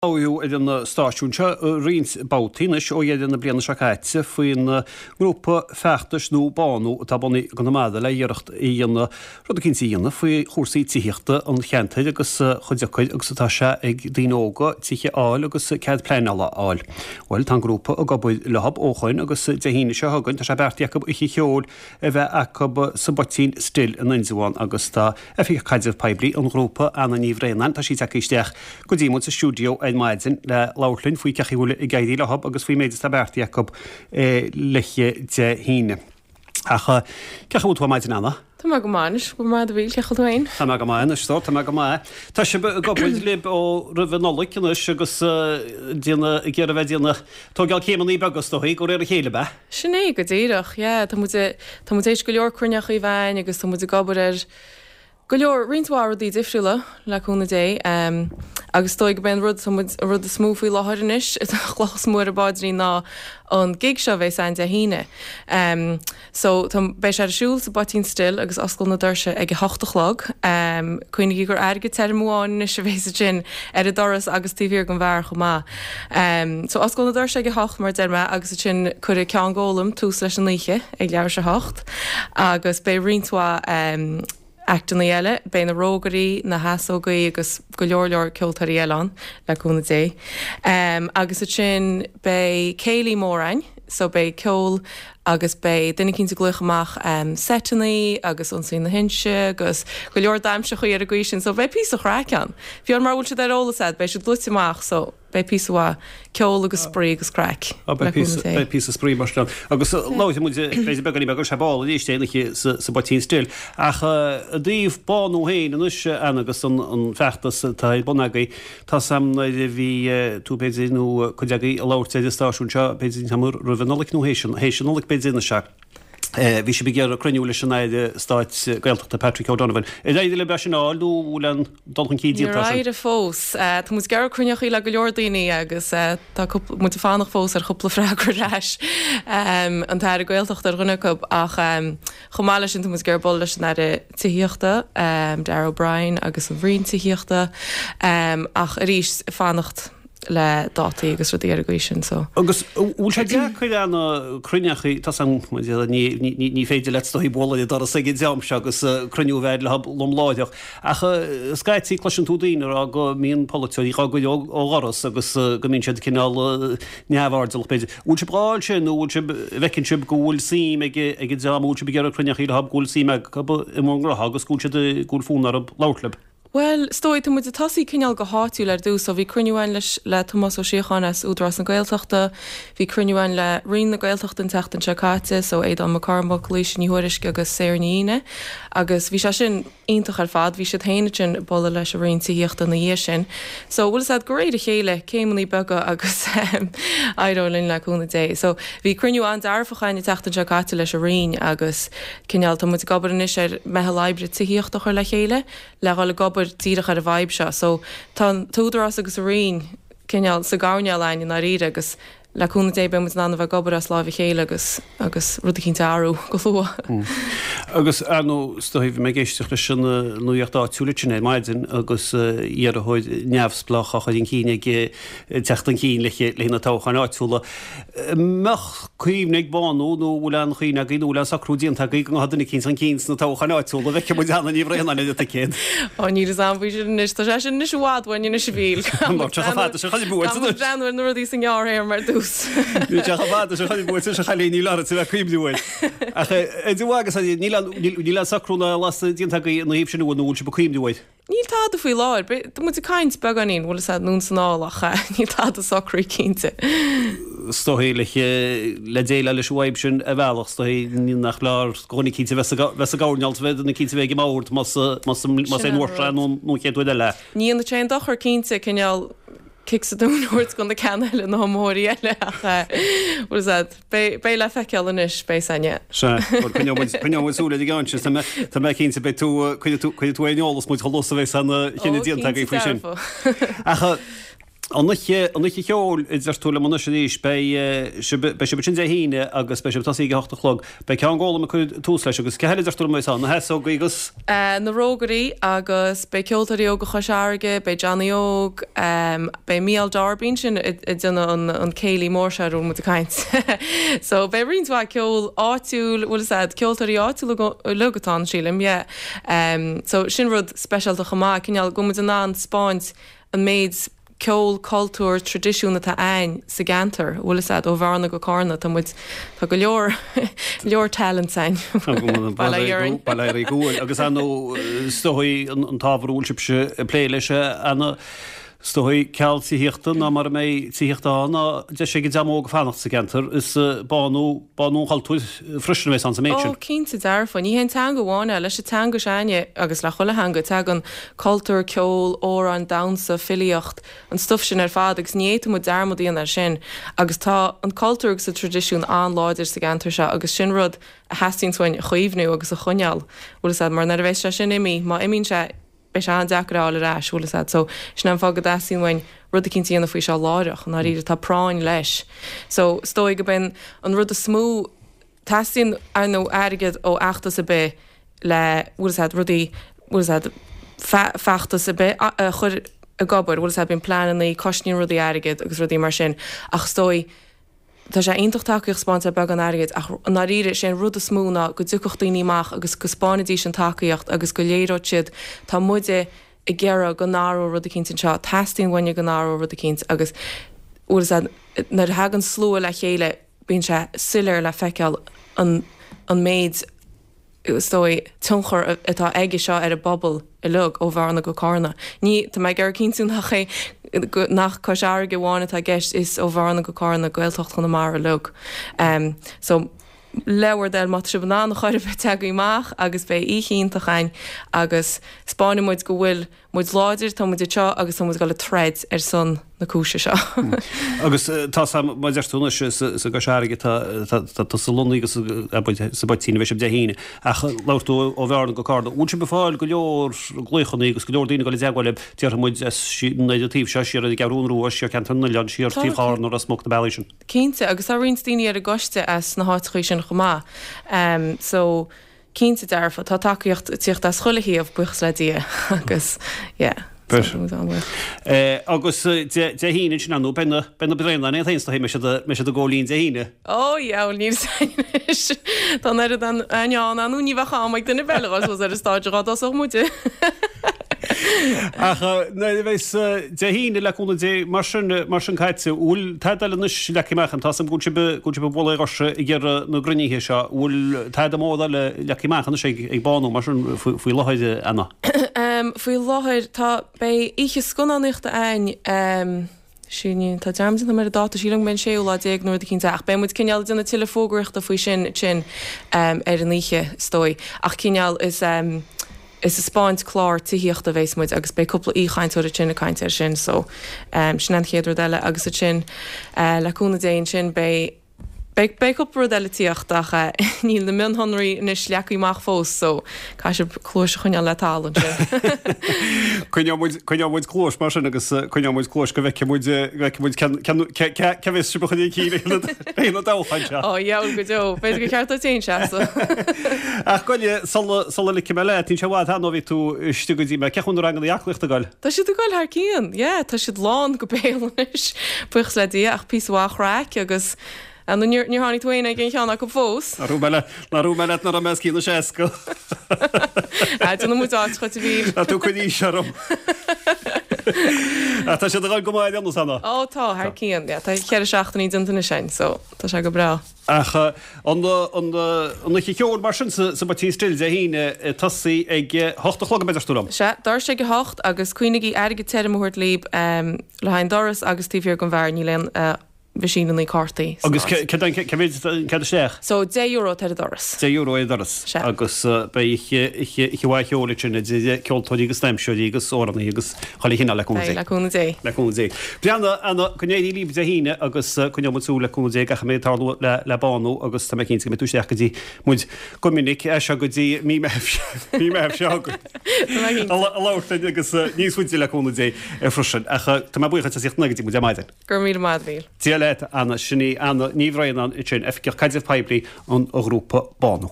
Labhraíodh ar an stáisiún seo roinnt babhtaí anois ó dheireadh na bliana seo caite faoin ngrúpa feachtais nua Bánú atá bunaithe i gConamara le iarracht a dhéanamh rud eicínt a dhéanamh faoi chúrsaí tithíochta an cheantair agus chomh deacair agus atá sé ag daoine óga tithe a fháil agus cead pleanála a fháil. Bhuel, tá an grúpa ag obair leo ó shoin agus Dé hAoine seo chugainn tá sé beartaithe acu oíche cheoil a bheith acu sa bPoitín Stil in Indreabhán agus tá Oifigeach Caidreamh Poiblí an ghrúpa, Anna Ní Bhraonáin, tá sí tagtha isteach go dtí muid sa stiúideo ar maidin le labhairt linn faoi cén chaoi a bhfuil ag éirí leo agus faoin méid atá beartaithe acu l'oíche Dé hAoine. Ach cén chaoi a bhfuil tú ar maidin, Anna? Tá mé go maith anois, go raibh maith agat a Mhíl, cén chaoi a bhfuil tú féin? Tá mé go maith anois, tá mé go maith. Tá sibh ag obair libh ó roimh an Nollaig anois agus déanamh, ag iarraidh a bheith ag déanamh, tógáil céimeanna beaga is dóigh, de réir a chéile, ab ea? Sin é go díreach, yeah. Tá muid, tá muid théis go leor cruinneachaí a bheith a'ainn agus tá muid ag obair ar go leor, roinnt mhaith rudaí difriúla, le cúnamh Dé. Agus is dóigh gurb é an rud, tá muid, an rud is mó faoi láthair anois, an chloch is mó ar an bpaidrín ná an gig seo a bheas a'ainn Dé hAoine. So, tá, beidh sé ar siúl sa bPoitín Stil agus osclóidh na doirse ag a hocht a chlog. Cuimhnigí gur airgead tirim amháin anois a bhéas ansin ar an doras agus taobh thiar den bheár chomh maith. So, osclóidh na doirse ag a hocht mar a deir mé agus ansin cuirfidh Ceán Gólam tús leis an oíche ag leathuair tar éis a hocht agus beidh roinnt mhaith actannaí eile, beidh na Rógairí, na hEasógaí agus go leor leor ceoltóirí eile ann, le cúnamh Dé. Agus ansin beidh céilí mór a'ainn, so beidh ceol agus beidh duine eicínt ag glaoch amach seiteannaí agus Ionsaí na hInse agus go leor damhsachaí ar an gcaoi sin, so beidh píosa chraic ann. Fiú mura bhfuil siad ar eolas a'd, beidh siad luite amach, so. Beidh píosa mhaith ceol agus spraoi agus craic, le cúnamh Dé. Beidh píosa spraoi mar sin ann. Agus labhróidh muid b'fhéidir beagáinín beag ar ball arís é an oíche sa bPoitín Stil. Ach i dtaobh Bánú féin anois, Anna, agus an feachtas atá ar bun agaibh, tá 's a'm nuair a bhí tú b'fhéidir nó cuid agaibh ag labhairt ar an stáisiún seo, b'fhéidir an t-am roimh an Nollaig nó théis an Nollaig b'fhéidir anois ea. Bhí sibh ag iarraidh cruinniú leis an Aire Stáit Gaeltachta Patrick O'Donovan. Ar éirigh libh é sin a fháil nó an bhfuil aon dul chun cinn déanta air sin? Níor éirigh fós. Tá muid ag iarraidh cruinneochaí le go leor daoine agus tá cúpla, muid ag fanacht fós ar chúpla freagra ar ais. An tAire Gaeltachta ar dhuine acu ach chomh maith leis sin tá muid ag iarraidh bualadh leis an Aire Tithíochta, Darragh O'Brien agus an Roinn Tithíochta ach arís ag fanacht. le dátaí agus rudaí ar an gcaoi sin so. Agus an bhfuil sé deacair Anna cruinneachaí, tá 's a'm, ní, ní féidir leat is dóigh bualadh ar an doras ag an dream seo agus cruinniú a bheith leo lom láithreach, ach scaití cloiseann tú daoine ag rá go mbíonn polaiteoirí dhá gcur ó dhoras agus go mbíonn siad cineál neamhairdeallach b'fhéidir. Bhfuil sibh dhá fháil sin nó bhfuil sibh, bhfeiceann sibh go bhfuil suim ag an dream a bhfuil sibh ag iarraidh cruinneachaí leo go bhfuil suim acu i mbur ngnótha agus go bhfuil siad, go bhfuil fonn orthu labhairt libh? Bhuel, is dóigh, tá muid ag tosaí cineál go háitiúil ar dtús. So bhí cruinniú againn leis, le Tomás Ó Síocháin as Údarás na Gaeltachta, bhí cruinniú againn le Roinn na Gaeltachta an tseachtain seo caite, so Aodán Mac Cormaic, Laoise Ní Thuairisg agus Sarah Ní Fhíne agus bhí sé sin iontach ar fad. Bhí siad féin ansin ag bualadh leis an Roinn Tithíochta ina dhiaidh sin. So bhfuil 'fhios a'd, de réir a chéile, céimeannaí beaga agus éireoidh linn le cúnamh Dé. So bhí cruinniú an-dearfach againn an tseachtain seo caite leis an Roinn agus cineál, tá muid ag obair anois ar meitheal oibre tithíochta a chur le chéile le dhul ag obair díreach ar an bhfadhb seo. So tá an tÚdarás agus an Roinn cineál sa gcoirnéal a'ainn i ndáiríre agus le cúnamh Dé beidh muid in ann a bheith ag obair as láimh a chéile agus agus rud eicínt a athrú go luath. Agus ar ndóigh, is dóigh, bhí mé ag éisteacht leis an nuaíocht áitiúil ansin ar maidin agus iarrthóir neamhspleách á chur chun cinn ag teacht chun cinn le haghaidh na toghcháin áitiúla. Mbeadh cuimhne ag Bánú nó bhfuil aon chuimhne agaibh nó bhfuil aon socrú déanta agaibh go ngabhfadh duine eicínt chun cinn sna toghcháin áitiúla, an bhfeicfidh muid Anna Ní Bhraonáin ar an ticéad? Ó níl fhios a'm faoi sin anois, tá sé sin anois i bhfad uainn anois a Mhíl. Tá sé chomh fada sin chun buaite anois. Breathnú ar na rudaí sa ngearrthéarma ar dtús. Níl sé chomh fada sin chun buaite anois a chailín, níl ort a bheith ag cuimhniú air. Ach agus níl aon socrú ná lasadh déanta agaibh ina thaobh sin nó bhfuil sibh ag cuimhniú air? Níl tada faoi láthair. Tá muid ag caint beagáinín, bhfuil fhios a'd, anonn 's anall ach níl tada socraithe cinnte. Is dóigh le le déileáil leis an bhfadhb sin ar bhealach, is dóigh nach leor do dhuine eicínt a bheith sa gcoirnéal, bheith duine eicínt a bheith ag an mbord más más é an uair seo nó an chéad uair eile. Ní dhéanfadh sé aon dochar cinnte, cineál cic sa tóin a thabhairt do na ceanna eile, na hiomaitheoirí eile ach bhfuil fhios a'd, beidh le feiceáil anois, beidh san, yeah. Sea, bhuel coinneoidh muid, coinneoidh muid súil ar an gceann sin, tá mé, tá mé cinnte beidh tú, cuirfidh tú, cuirfidh tú ar an eolas muid chomh luath is a bheidh aon chinneadh déanta agaibh faoi sin. Ó, cinnte dearfa. Ach. An oíche, an oíche cheoil, a deir tú liom anois arís, beidh sibh, beidh sibh ansin Dé hAoine agus beidh sibh ag tosaí ag a hocht a chlog. Beidh Ceann Gólaim ag cur tús leis agus cé eile a deir tú liom a bheas ann? Na hEasógaí agus? Na Rógairí agus beidh Ceoltóirí Óga Chois Fharraige, beidh Johnny Óg, beidh Mícheál Darby ansin ag déanamh an, an céilí mór seo ar a bhfuil muid ag caint. So beidh roinnt mhaith ceol áitiúil, bhfuil fhios a'd, ceoltóirí áitiúla uilig atá ann sílim, yeah. So sin rud speisialta chomh maith, cineál go bhfuil muid in ann 'spáint an méid ceol, cultúr, traidisiún atá a'ainn sa gceantar, bhfuil fhios a'd, ó Bhearna go Cárna, tá muid, tá go leor, leor talents a'ainn. Bail ó Dhia orainn. Bail ó Dhia oraibh go bhfuil, agus ar ndóigh, is dóigh an t-ábhar a bhfuil sibhse ag plé leis, Anna, is dóigh ceal tithíochta ná mara mbeidh tithíocht ann ná deis ag an dream óg fanacht sa gceantar, is bánú, bánú an chultúir freisin a bheas ann sa méid sin. Ó, cinnte dearfa. Ní hé an teanga amháin é. Leis an teanga s'a'inne, agus le chuile theanga, tagann cultúr, ceol, amhráin, damhsa, filíocht, an stuif sin ar fad agus ní fhéadfaidh muid dearmad a dhéanamh air sin. Agus tá an cultúr agus an traidisiún an-láidir sa gceantar seo agus sin rud a theastaíonns uainn a chaomhnú agus a choinneáil, bhfuil fhios a'd, mar nuair a bheas sé sin imithe, má imíonn sé, beidh sé an-deacair a fháil ar ais, bhfuil fhios a'd. So, sin é an fáth go dteastaíonn uainn rud eicínt a dhéanamh faoi seo láithreach, i ndáiríre, tá práinn leis. So, is dóigh go b'in an rud is mó, teastaíonn, ar ndóigh, airgead ó fheachtas ar bith le, bhfuil fhios a'd, rudaí, bhfuil fhios a'd, feachtas ar bith a chur ag obair, bhfuil fhios a'd, bíonn pleanannaí, cosnaíonn rudaí airgead agus rudaí mar sin, ach is dóigh, Tá sé iontach tacaíocht a 'spáint le beagán airgid ach i ndáiríre is é an rud is mó ná go dtiocfadh daoine amach agus go 'spáinfidís an tacaíocht agus go léireodh siad tá muide ag iarraidh go n-athródh rud eicínt anseo, teastaíonn uainne go n-athródh rud eicínt agus bhfuil fhios a'd nuair a thagann slua le chéile bíonn sé soiléir le feiceáil an an méid is dóigh, tionchar atá aige seo ar an bpobal uilig, ó Bhearna go Cárna. Ní, tá mé ag iarraidh cinntiú nach é, nach Cois Fharraige amháin atá i gceist, is ó Bhearna go Cárna, Gaeltacht Chonamara uilig. So, le bhur dtoil, má tá sibh in ann a chor ar bith, teagaigí amach agus beidh oíche iontach againn agus 'spáinfidh muid go bhfuil muid láidir, tá muid anseo agus tá muid ag dul ag troid ar son na cúise seo. Agus tá a fhios a'm, mar a deir tú anois, is i gCois Fharraige atá tusa lonnaithe agus sa bPoitín a bheidh sibh Dé hAoine. Ach labhair tú ó Bhearna go Cárna. Bhfuil sibh ag fáil go leor glaochanna agus go leor daoine ag dul i dteagmháil libh, déarfaidh muid, as an taobh seo, siar ar an gCeathrún Rua, siar Ceantar na nOileán, siar taobh Chárna, Ros Muc, na bealaí sin? Cinnte, agus tá roinnt daoine ar an gcoiste as na háiteachaí sin chomh maith. So. Cinnte dearfa, tá tacaíocht ag tíocht as chuile thaobh, buíochas le Dia, agus yeah, so tá muid an-bhuíoch. Agus Dé hAoine ansin, ar ndóigh, beidh na, beidh na Braonáin iad féin is dóigh, mbeidh siad, mbeidh siad ag gabháil fhoinn Dé hAoine. Ó yeah, bhuel níl 'fhios a'inn anois, tá an oiread a'inn ann, ar ndóigh ní bheadh am ag duine ar bith eile dhul suas ar an stáitse dhá dtosódh muide. Ach nuair a bheas Dé hAoine le cúnamh Dé mar sin, mar sin caite, bhfuil tada eile anois leagtha amach ann? Tá 'fhios a'm go bhfuil sibh, go bhfuil sibh ag bualadh ar dhoirse ag iarraidh na gcruinnithe seo. Bhfuil tada mór eile leagtha amach anois ag, ag Bánú mar sin faoi láthair, Anna? Faoi láthair tá, beidh oíche scannánaíochta a'ainn, Sin, tá dearmad déanta agam ar an dáta, sílim go mbeidh an séú lá déag nó rud eicínt ach beidh muid cineál ag déanamh tuilleadh fógraíochta faoi sin ansin ar an oíche, is dóigh. Ach cineál is is ag 'spáint clár tithíochta a bheas muid agus beidh cúpla aoichainteoir ansin ag caint air sin so sin an chéad rud eile agus ansin le cúnamh Dé ansin beidh Beidh, beidh cúpla rud eile ag tíocht ach níl na mionshonraí anois leagtha amach fós so caithfidh sibh cluais a choinneáil le talamh ansin. Coinneoidh muid, coinneoidh muid cluais mar sin agus coinneoidh muid cluais go bhfeicfidh muid, go bhfeicfidh muid cén, cén, cé, cé, cé bheas sibh a chur chun cinn ag na toghcháin seo. Ó, dheabhail go deo. B'fhéidir gur cheart duit féin seasamh. Ach gabh i leith, sula, sula ligfidh mé leat, níl sé i bhfad cheana ó bhí tú istigh go dtí mé. Cén chaoi a bhfuil na ranganna aclaíochta ag goil? Tá siad ag goil thar cionn, yeah, tá siad lán go béal anois, buíochas le Dia, ach píosa mhaith craic agus, ah, nó níor, níor tháinig tú féin ag aon cheann acu fós? Nár dhúirt mé leat, nár dhúirt mé leat nach raibh mé os cionn na seasca. Ah, déanfaidh muid áit dhuit a Mhíl. Tá tú ag cur aois orm. Ach tá siad ag goil go maith ar aon nós, Anna. Ó tá, thar cionn, yeah, tá cheithre seachtainí déanta anois againn, so tá sé go breá. Ach an oíche cheoil mar sin sa bPoitín Stil Dé hAoine ag tosaí ag a hocht a chlog, a deir tú liom? Sea, doirse ag a hocht agus cuimhnigí airgead tirim a thabhairt libh le haghaidh an doras agus taobh thiar den bheár níl aon. mheaisíneanna cártaí san Agus áit. céard é, cé mhéad an cead isteach? So, €10 atá ar an doras. €10 ar an doras. Sea. Agus beidh oíche, oíche, oíche mhaith cheoil ansin idir ceoltóirí agus damhsóirí agus amhránaithe agus chuile chineál le cúnamh Dé. Beidh, le cúnamh Dé. Le cúnamh Dé. Breathnaigh, Anna, go n-éirí libh Dé hAoine agus coinneoidh muid súil le cúnamh Dé gach a mbeidh ag tarlú le, le Bánú agus tá mé cinnte go mbeidh tú isteach go dtí muid go minic as seo go dtí mí Mheithimh, mí Mheithimh seo chugainn. Tá mé cinnte. A labhairt linn agus níos faide le cúnamh Dé freisin. Ach tá mé buíoch as ucht a bheith go dtí muid ar maidin. Go raibh míle maith agat, a Mhíchíl. Dia leat, Anna. Sin í Anna Ní Bhraonáin ansin, Oifigeach Caidrimh Poiblí an ghrúpa Bánú.